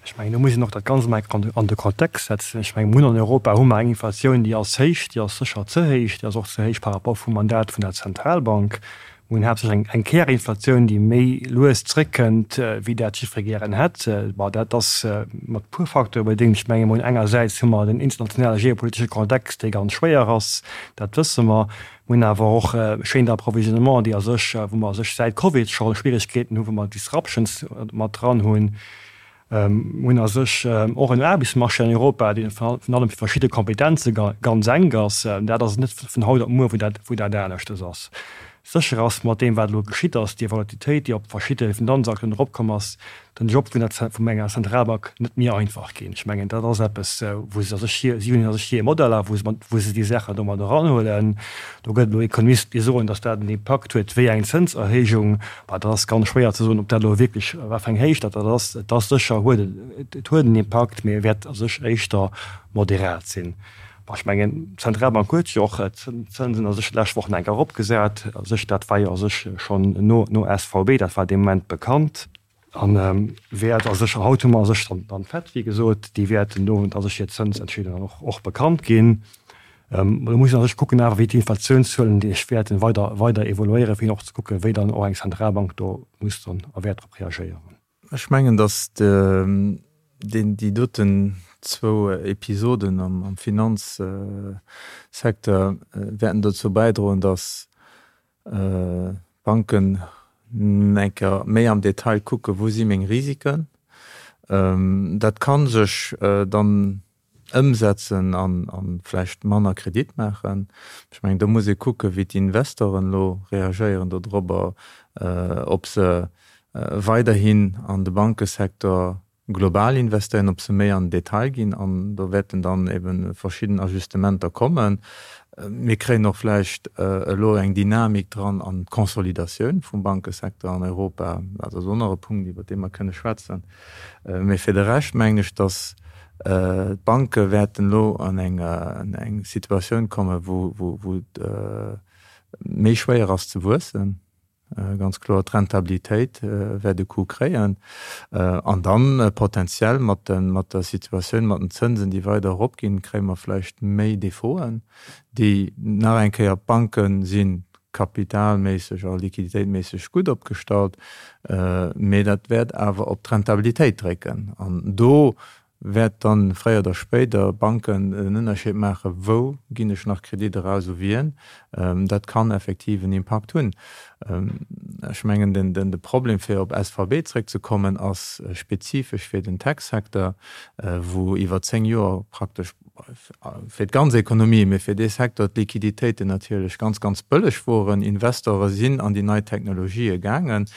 Speaker 4: Ech mengen, do muss een och dat Ganzt emol eng Kéier an de Kontext setzen. Ech mengen, mir hunn an Europa hu mer eng Inflatioun, déi ass héich, déi ass sécher ze héich, déi ass och ze héich par rapport vum Mandat vun der Zentralbank. Mir hunn haaptsächlech eng Kärinflatioun, déi méi lues zréckkënnt, wéi dat jiddweree gären hätt. Bon, dat ass mat e puer Facteure bedéngt. Ech menge mol, engersäits hu mer den internationale geopolitesche Kontext, dee ganz schwéier ass, dat wësse mer. Mir hunn awer och Chaînes d'approvisionnement, déi a sech, wou mer a sech säit Covid scho Schwierigkeeten hunn, wou mer Disruptions mat dran hunn. Mir hunn a sech och en Aarbechtsmarché an Europa, dee virun allem fir verschidde Kompetenze ganz enk ass. Dat ass net vun haut op muer, wou dat, wou dat aneschtes ass. Sécher ass, mat deem wat elo geschitt ass, déi Volatilitéit, déi op verschidde Finanzakten eropkomm ass, den Job vun der, vun enger Zentralbank net méi einfach ginn. Ech mengen, dat ass eppes, wou se a sech hir, si hunn a sech hir Modeller, wou se, wou se déi Saachen domat eranhuelen. Do gëtt elo Ekonomisten, déi soen, datt dat en Impakt huet wéi eng Zënserhéijung. Bah, dat ass ganz schwéier ze soen, ob dat elo wierklech, wat fir eng Héicht dat dat ass. Et ass sécher, huet et, et huet en Impakt, mee e wäert a sech éischter moderat sinn. Bah, ech mengen, d'Zentralbank huet jo och d'Zënsen a sech d'lescht Woch nach eng Kéier eropgesat. A sech, dat war jo a sech schonn no, no SVB, dat war dee Moment bekannt. A wäert a sech, haut hu mer a sech dann, dann d'Fed, wéi gesot, déi wäert den Owend a sech hir Zënsentscheedung dann och, och bekannt ginn. Do muss een a sech kucken awer, wéi d'Inflatiounszuelen déi sech wäerten weider, weider evoluéieren, fir och ze kucken, wéi dann och eng Zentralbank do muss dann a wäert drop reagéieren.
Speaker 3: Ech mengen, datt déi doten zwou Episoden am Finanzsecteur wäerten dozou bäidroen, datt d'Banken eng Kéier méi am Detail kucken, wou si meng Risiken. Dat ka sech dann ëmsetzen an vläicht manner Kredit maachen. Ech mengen, do muss ee kucken, wéi d'Investoren elo reagéieren dodrobber, ob se weiderhin an de Bankesecteur global investéieren, ob se méi an den Detail ginn. An do wäerten dann ebe verschidden Ajustementer kommen. Mir kréien och vläicht elo eng Dynamik dran an d'Consolidatioun vum Bankesecteur an Europa. Dat ass och nach e Punkt, iwwert dee mer kënne schwätzen. Mee fir de Rescht mengen ech, datt d'Banke wäerten elo an eng Situatioun kommen, wou et méi schwéier ass ze wuessen. Ganz kloer, d'Rentabilitéit wäert e Coup kréien. An dann potenziell mat der Situatioun mat den Zënsen, déi weider eropginn, kréie mer vläicht méi Defauten, déi nach eng Kéier, d'Banke si kapitalméisseg a liquiditéitméisseg gutt opgestallt, mee dat wäert awer op d'Rentabilitéit drécken. An do wäert dann fréier oder spéider Banken den Ënnerscheed maachen, wou ginn ech nach Kredit eraus, u wien. Dat kann effektiv en Impakt hunn. Ech mengen, de Problem, fir op SVB zréckzekommen, ass spezifesch fir den Tech-Secteur, wou iwwer 10 Joer praktesch fir d'ganz Ekonomie, mee fir dee Secteur d'Liquiditéiten natierlech ganz, ganz bëlleg woren. Investore sinn an déi nei Technologië gaangen.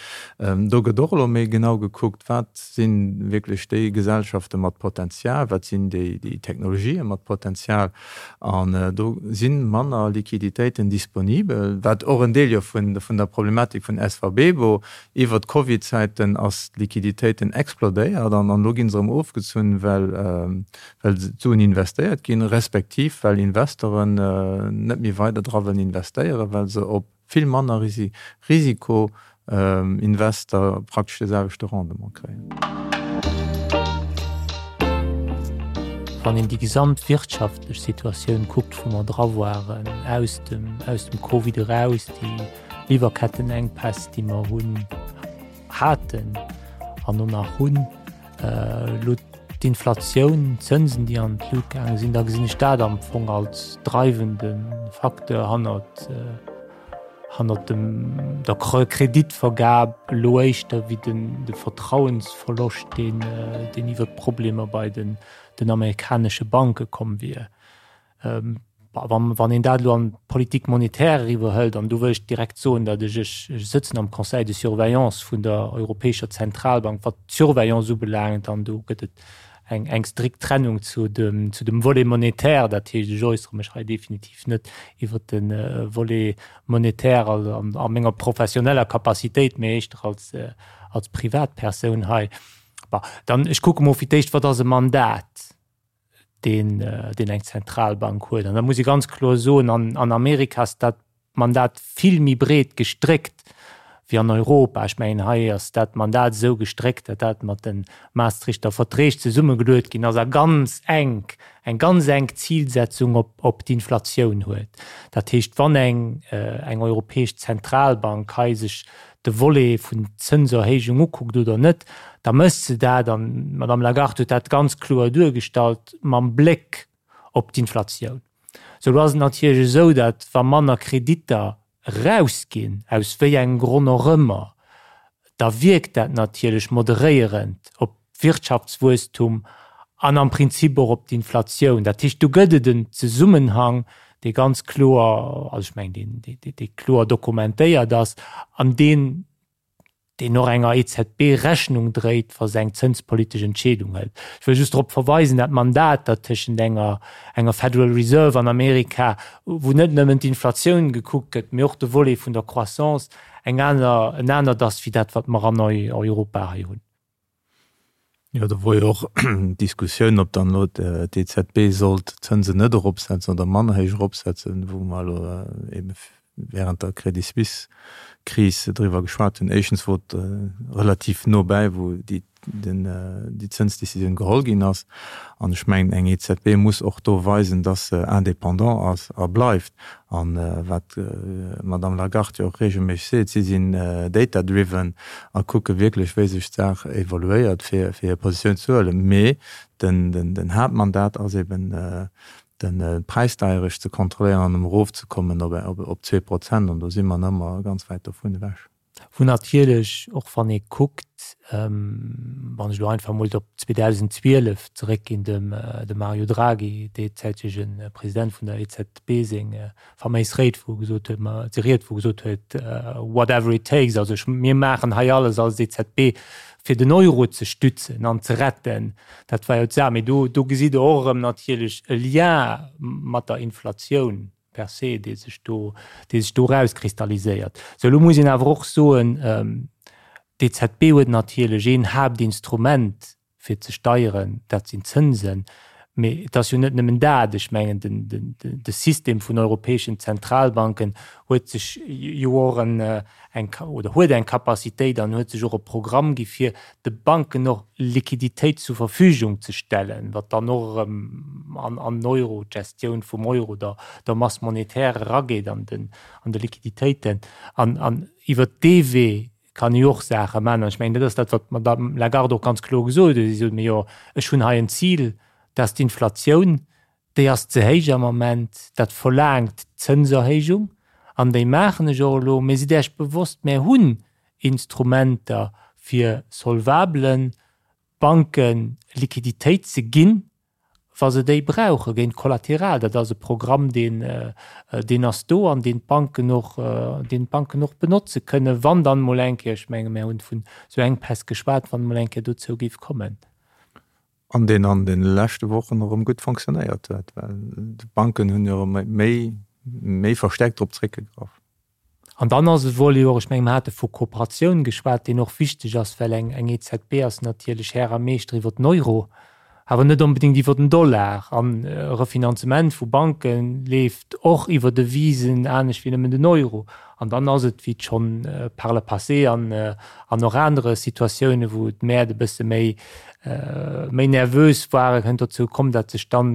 Speaker 3: Do gëtt och elo méi genau gekuckt, wat si wierklech déi Gesellschafte mat Potenzial, wat sinn déi Technologië mat Potenzial. An do si manner Liquiditéiten disponibel, wat och en Deel jo vun der Problematik vun SVB wor. Iwwer d'Covid-Zäiten ass d'Liquiditéiten explodéiert an elo gi se erëm ofgezunn, well well d'Suen investéiert ginn, respektiv well Investoren net méi weider dra wëllen investéieren, well se op vill manner Risiko Investor praktesch de selwechte Rendement kréien.
Speaker 2: Wann een déi gesamt wirtschaftlech Situatioun kuckt, wou mer dra waren, aus dem, aus dem Covid eraus, déi Liwwerkettenengpäss, déi mer hunn, haten an och nach hunn, Elo d'Inflatioun, d'Zënsen, déi an d'Lut gaange sinn, da gesinn ech dat am Fong als dreiwende Facteur hannert, hannert dem, der Kreditvergab elo éischter wéi den, de Vertrauensverloscht, deen, deen iwwert d'Problemer bei den, den amerikanesche Banke komm wier. Wann een dat elo an d'Politique monétaire eriwwerhëlt, an do wëll ech direkt soen, datt ech, ech sëtzen am Conseil de surveillance vun der Europäescher Zentralbank, wat d'Surveillance ubelaangt, an do gëtt et eng, eng strikt Trennung zu dem, zu dem Volet monétaire. Dat heescht, ech äussere mech hei definitiv net iwwert de Volet monétaire a menger professioneller Capacitéit, mee éischter als, als Privatpersoun hei. Bon, dann, ech kucke mol fir d'éischt, wat ass e Mandat? deen, deen eng Zentralbank huet. An da muss ee ganz kloer soen, an, an Amerika ass dat Mandat vill méi breet gestréckt. wéi an Europa. Ech mengen, hei ass dat Mandat esou gestréckt, datt dat mat de Maastrichter Verträg zesummegeluet ginn ass a ganz enk, eng ganz enk Zilsetzung op, op d'Inflatioun huet. Dat heescht, wann eng, eng europäesch Zentralbank hei sech de Volet vun Zënserhéijung ukuckt oder net, da mécht se dat, an d'Madame Lagarde huet dat ganz kloer duergestallt, mam Bléck op d'Inflatioun. Sou, elo ass et natierlech esou, datt wa manner Kreditter erausginn, aus wéi engem Gronn och ëmmer, da wierkt dat natierlech moderéierend op d'Wirtschaftswuesstum an am Prinzip och op d'Inflatioun. Dat heescht, do gëtt et en Zesummenhang, dee ganz kloer, also ech mengen, deen, dee kloer dokumentéiert ass an deen, deen och enger EZB Rechnung dréit, wa se eng zënspolitesch Entscheedung hëlt. Ech wëll just drop verweisen, dat Mandat, dat tëschent enger, enger Federal Reserve an Amerika, wou net nëmmen d'Inflatioun gekuckt gëtt, mee och de Volet vun der Croissance, eng aner, en anert ass wéi dat, wat mer an Europa hei hunn.
Speaker 3: Jo, do wor jo och d'Diskussioun, ob dann elo d'EZB sollt d'Zënsen net eropsetzen oder manner héich eropsetzen, wou mer elo ebe während der Credit Suisse-Kris driwwer geschwat hunn. Éischtens wor et relativ no bäi, wou déi Zënsdecisioun geholl ginn ass. An ech mengen, eng EZB muss och do weisen, dass se indépendant ass a bleift. A wat d'Madame Lagarde jo och reegelméisseg seet, si sinn data driven a kucke wierklech, wéi sech d'Saach evoluéiert, fir hir Positioun ze huelen. Mee den Haaptmandat ass eben, de Präisdeierecht ze kontrolléieren an erofzekommen op 2%. An do si mer nach ëmmer ganz wäit dovun ewech.
Speaker 2: Wou natierlech, och wann ee kuckt, wann ech elo einfach emol op 2012 zeréckginn, dem Mario Draghi, deezäitege President vun der EZB, seng faméis Réid, wou e gesot huet, ma déi Ried, wou e gesot huet, whatever it takes, also ech, mir maachen hei alles als EZB, fir den Euro ze stützen an ze retten. Dat war jo d'Saach. Mee do, do gesitt Der och erëm natierlech e Lien mat der Inflatioun per se, dee sech do, dee sech do erauskristalliséiert. Sou, elo muss een awer och soen, d'EZB huet natierlech een Haaptinstrument fir ze steieren, dat sinn d'Zënsen. Mee et ass jo net nëmmen dat. Ech mengen, den, den, de System vun europäeschen Zentralbanken huet sech jo och en, eng, oder huet eng Capacitéit an huet sech och e Programm gi fir de Banken och Liquiditéit zur Verfügung ze stellen, wat dann och erëm an an den Euro, d'Gestioun vum Euro, der der Masse monétaire erageet an den an de Liquiditéiten. An an iwwert dee Wee kann ee jo och Saache maachen. An ech mengen, dat ass dat, wat d'Madame Lagarde och ganz kloer gesot huet. Si sot, Mee jo, ech hunn hei en Zil, dat ass d'Inflatioun. Déi ass ze héich am Ament, dat verlaangt Zënserhéijung an déi maachen ech och elo. Mee sidd Äech bewosst, mär hunn Instrumenter fir solvabele Banke Liquiditéit ze ginn, wa se déi brauche géint Kollateral. Dat ass e Programm, deen, deen ass do an deen d'Banken och, deen d'Banken och benotze kënnen, wann dann emol eng Kéier, ech menge mär hunn vun esou Enkpäss geschwat, wann emol eng Kéier dozou géif kommen.
Speaker 3: An deen an de leschte Wochen erëm gutt fonctionnéiert huet, well d'Banken hunn jo erëm méi, méi verstärkt drop zréckgegraff.
Speaker 2: An dann ass e Volet och, ech menge mer hate vu Kooperatioun geschwat, deen och wichteg ass, well eng, eng EZB ass natierlech Här a Meeschter iwwer den Euro, awer net onbedéngt iwwer den Dollar. An e Refinanzement vu Banke leeft och iwwer Devisen anescht wéi nëmmen den Euro. An dann ass et, wéi et schonn par le passé an, an och anere Situatiounen, wou d'Mäert e bësse méi, méi nervös waren, kënnt dozou komm, datt sech dann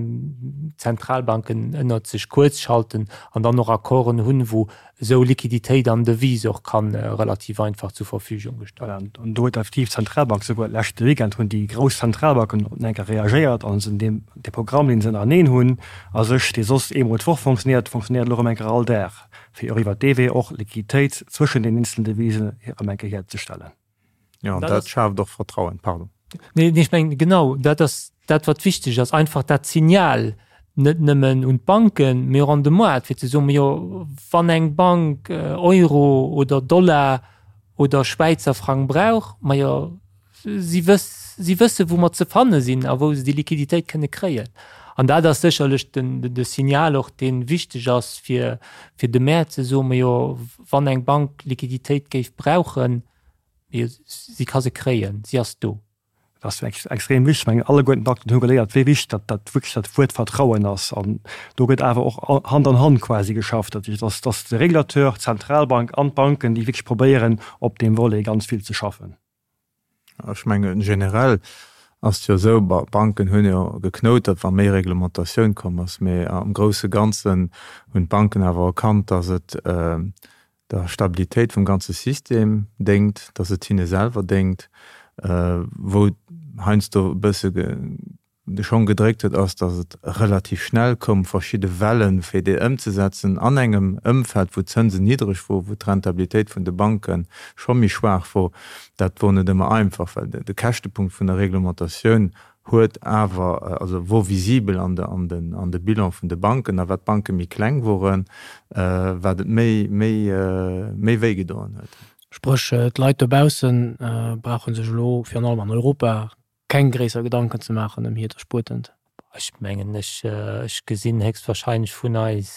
Speaker 2: d'Zentralbanken ënnert sech kuerzschalten an dann och Accorden hunn, wou esou Liquiditéit an Devise och ka relativ einfach zur Verfügung gestallt
Speaker 4: ginn. Voilà, an do huet effektiv d'Zentralbank, souguer leschte Weekend hunn déi grouss Zentralbanken eng Kéier reagéiert a sinn deem, dee Programm, deen se ënnereneen hunn a sech, dee soss eemol d'Woch fonctionnéiert, fonctionnéiert elo erëm eng Kéier all Dag, fir och iwwert dee Wee och Liquiditéit zwëschen den eenzelen Devisen erëm eng Kéier hierzestellen.
Speaker 3: Jo, an dat schaaft och Vertrauen. Pardon.
Speaker 2: Nee, ech mengen, genau, dat ass dat, wat wichteg ass, einfach dat Signal net nëmmen un d'Banken, mee och an de Moart, fir ze soen, Jo, wann eng Bank Euro oder Dollar oder Schwäizer Frang brauch, majo, si wëss, si wësse wou mer ze fanne sinn a wou se déi Liquiditéit kënne kréien. An dat ass sécherlech den, de Signal och, dee wichteg ass, fir, fir de Mäert ze soen, Majo, wann eng Bank Liquiditéit géif brauchen, mee si ka se kréien, si ass do.
Speaker 4: Dat ass extrem wichteg. Ech mengen, alleguerten d'Acteuren hu geléiert, wéi wichteg dat, dat wierklech dat Wuert Vertrauen ass. An do gëtt awer och Hand an Hand quasi geschafft. Dat heescht, dass, dass de Régulateur, d'Zentralbank an d'Banken, déi wierklech probéieren, op deem Volet ganz vill ze schaffen.
Speaker 3: Ech mengen, generell ass et jo esou, d'Banken hunn jo geknoutert, wa méi Reglementatioun komm ass. Mee am grousse Ganzen hunn d'Banken awer erkannt, dass et der Stabilitéit vum ganze System déngt, dass et hinne selwer déngt. Wou heiansdo e bësse de Schong gedréckt huet, ass, datt et relativ schnell koum, verschidde Wellen, fir déi ëmzesetzen an engem Ëmfeld, wou d'Zënsen niddreg wor, wou d'Rentabilitéit vun de Banke scho méi schwaach wor. Dat wor net ëmmer einfach, well de Käschtepunkt vun der Reglementatioun huet awer, also wor visibel an de, an den, an de Bilan vun de Banken. A wat d'Banke méi kleng woren, wat et méi, méi, méi wéi gedoen huet.
Speaker 5: Spréch, d'Leit dobausse brauche sech elo, virun allem an Europa, keng gréisser Gedanken ze maachen ëm hiert Erspuertent.
Speaker 2: Ech mengen, ech, ech gesinn héchstwahrscheinlech vun eis,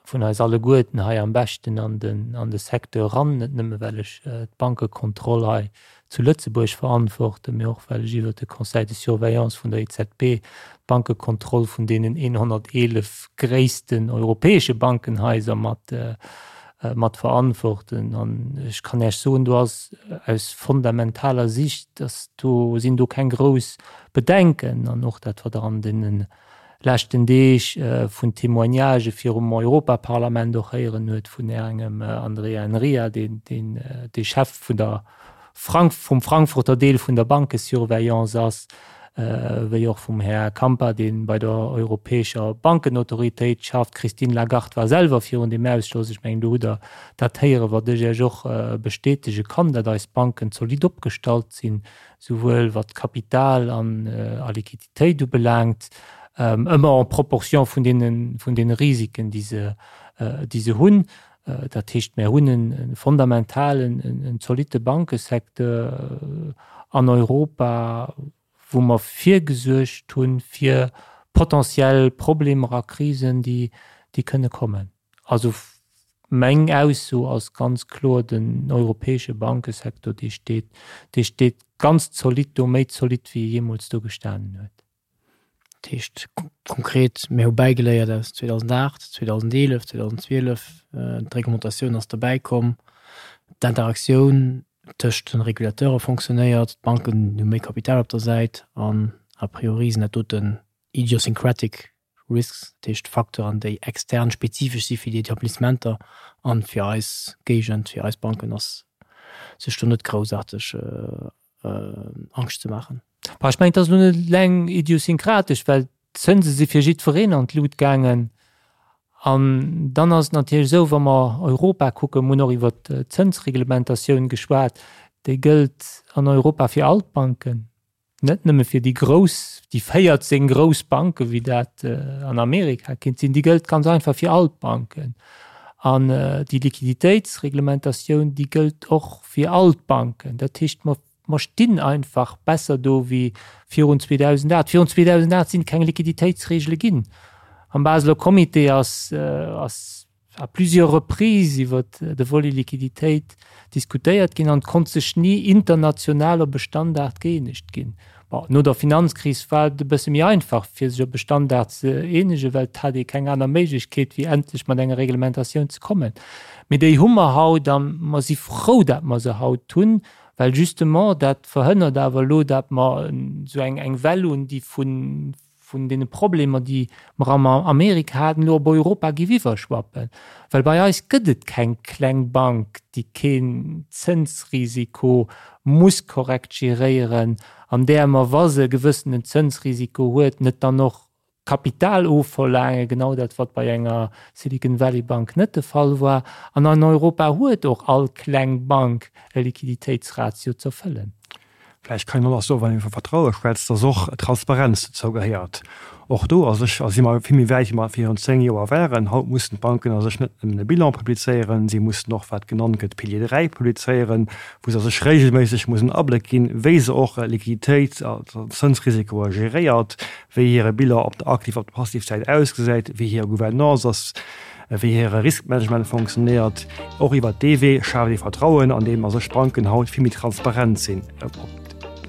Speaker 2: vun eis alleguerten hei am beschten an den, an de Secteur eran, net nëmme well ech d'Bankekontroll hei zu Lëtzebuerg verantworten, mee och well ech iwwert de Conseil de surveillance vun der EZB d'Bankekontroll vun deenen 111 gréissten europäesche Bankenhaiser mat, mat verantworten. An ech kann Iech soen, do ass aus fundamentaler Sicht, dass do sinn do keng grouss Bedenken. An och dat, wat Der an deene leschten Deeg vun Témoignagë virum Europaparlament och héieren huet vun engem Andrea Enria, deen de Chef vun der Frank vum Frankfurter Deel vun der Bankesurveillance ass, wéi och vum Här Kampa, dee bei der Europäescher Bankenautoritéit schafft. D'Christine Lagarde war selwer virun deem Ausschoss. Ech mengen, do hutt Der dat héieren, wat ech Iech och bestätege kann, datt eis Banken zolidd opgestallt sinn, souwuel wat Kapital an a Liquiditéit ubelaangt, ëmmer en proportion vun deene, vun deene Risiken, déi se, déi se hunn. Dat heescht, mir hunn e fondamentalen, en zolitte Bankesecteur an Europa, wou mer virgesuergt hu fir potentiell Problemer a Krisen, déi kënne kommen. Also meng Ausso ass ganz kloer, den europäesche Bankesecteur, dee steet, dee steet ganz zolidd do, méi zolidd wéi e jeemools do gestanen huet.
Speaker 5: Dat heescht konkret, mir hu bäigeléiert aus 2008, 2011, 2012, d'Reglementatioun ass derbäi komm, d'Interaktioun tëscht de Regulateure fonctionnéiert, d'Banken hu méi Kapital op der Säit an a priori sinn dat doten idiosyncratic risks, dat heescht Facteuren, déi extern spezifesch si fir déi Etablissementer an fir eis Géigend, fir eis Banken ass sech do net groussaarteg Angscht ze maachen.
Speaker 2: Bah, ech mengen, et ass elo net eleng idiosynkratesch, well d'Zënse si fir jiddwereen an d'Lut gaangen. An dann ass et natierlech esou, wa mer Europa kucken, mir hunn och iwwert d'Zënsreglementatioun geschwat, déi gëllt an Europa fir all d'Banken, net nëmme fir déi grouss, déi 14 grouss Banken, wéi dat an Amerika kinnt sinn, déi gëllt ganz einfach fir all d'Banken. An déi Liquiditéitsreglementatioun, déi gëllt och fir all d'Banken. Dat heescht, mer Mer stinn einfach besser do wéi virun 2008. Virun 2008 sinn et keng Liquiditéitsregele ginn. Am Baseler Comité ass, ass à plusieurs reprises iwwer de Volet Liquiditéit diskutéiert ginn an et konnt sech ni international op e Standard gëeenegt ginn. Bon, no der Finanzkris war et e bësse méi einfach, fir sech op e Standard ze eenegen, well et hat ee keng aner Méiglechkeet, wéi endlech mat enger Reglementatioun ze kommen. Mee déi hu mer haut a mer si frou, dat mer se haut hunn, well justement dat verhënnert awer elo, dat mer esou eng eng Well hunn, déi vun vun deene Problemer, déi mer am Amerika haten, elo op Europa géif iwwerschwappen. Well bei eis gëtt et keng kleng Bank, déi keen Zënsrisiko muss korrekt geréieren an där mer, wa se e gewëssenen Zënsrisiko huet, net dann och Kapital ofverlaangen, genau dat wat bei enger Silicon Valley Bank net de Fall war. An an Europa huet och all kleng Bank e Liquiditéitsratio z'erfëllen.
Speaker 4: Vläicht kann een och nach soen, wann ee vu Vertraue schwätzt, dass och Transparenz dozou gehéiert. Och do a sech si mer vill méi wäit, wéi mer virun 10 Joer waren. Haut mussen d'Banken a sech net nëmmen e Bilan publizéieren, si mussen och, wat genannt gëtt, Pilier 3 publizéieren, wou se a sech regelméisseg mussen Abléck ginn, wéi se och Liquiditéit a Zënsrisikoe geréiert, wéi hire Bilan op der Aktiv op der Passivsäit ausgesäit, wéi hir Gouvernance ass, wéi hire Riskmanagement fonctionnéiert. Och iwwert dee Wee schaaft ee Vertrauen, andeem a sech d'Banken haut vill méi transparent sinn op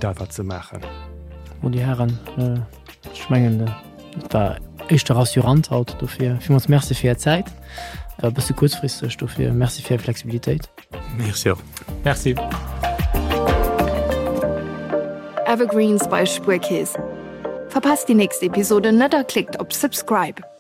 Speaker 4: dat, wat se maachen.
Speaker 5: Bon, Dir Hären, ech mengen, et war éischter rassurant haut. Dofir villmools Merci fir Är Zäit. War e bësse kuerzfristeg, dofir Merci fir Är Flexibilitéit.
Speaker 3: Merci och.
Speaker 2: Merci.
Speaker 1: Evergreens bei Spuerkeess. Verpasst déi nächst Episode net a klickt op Subscribe.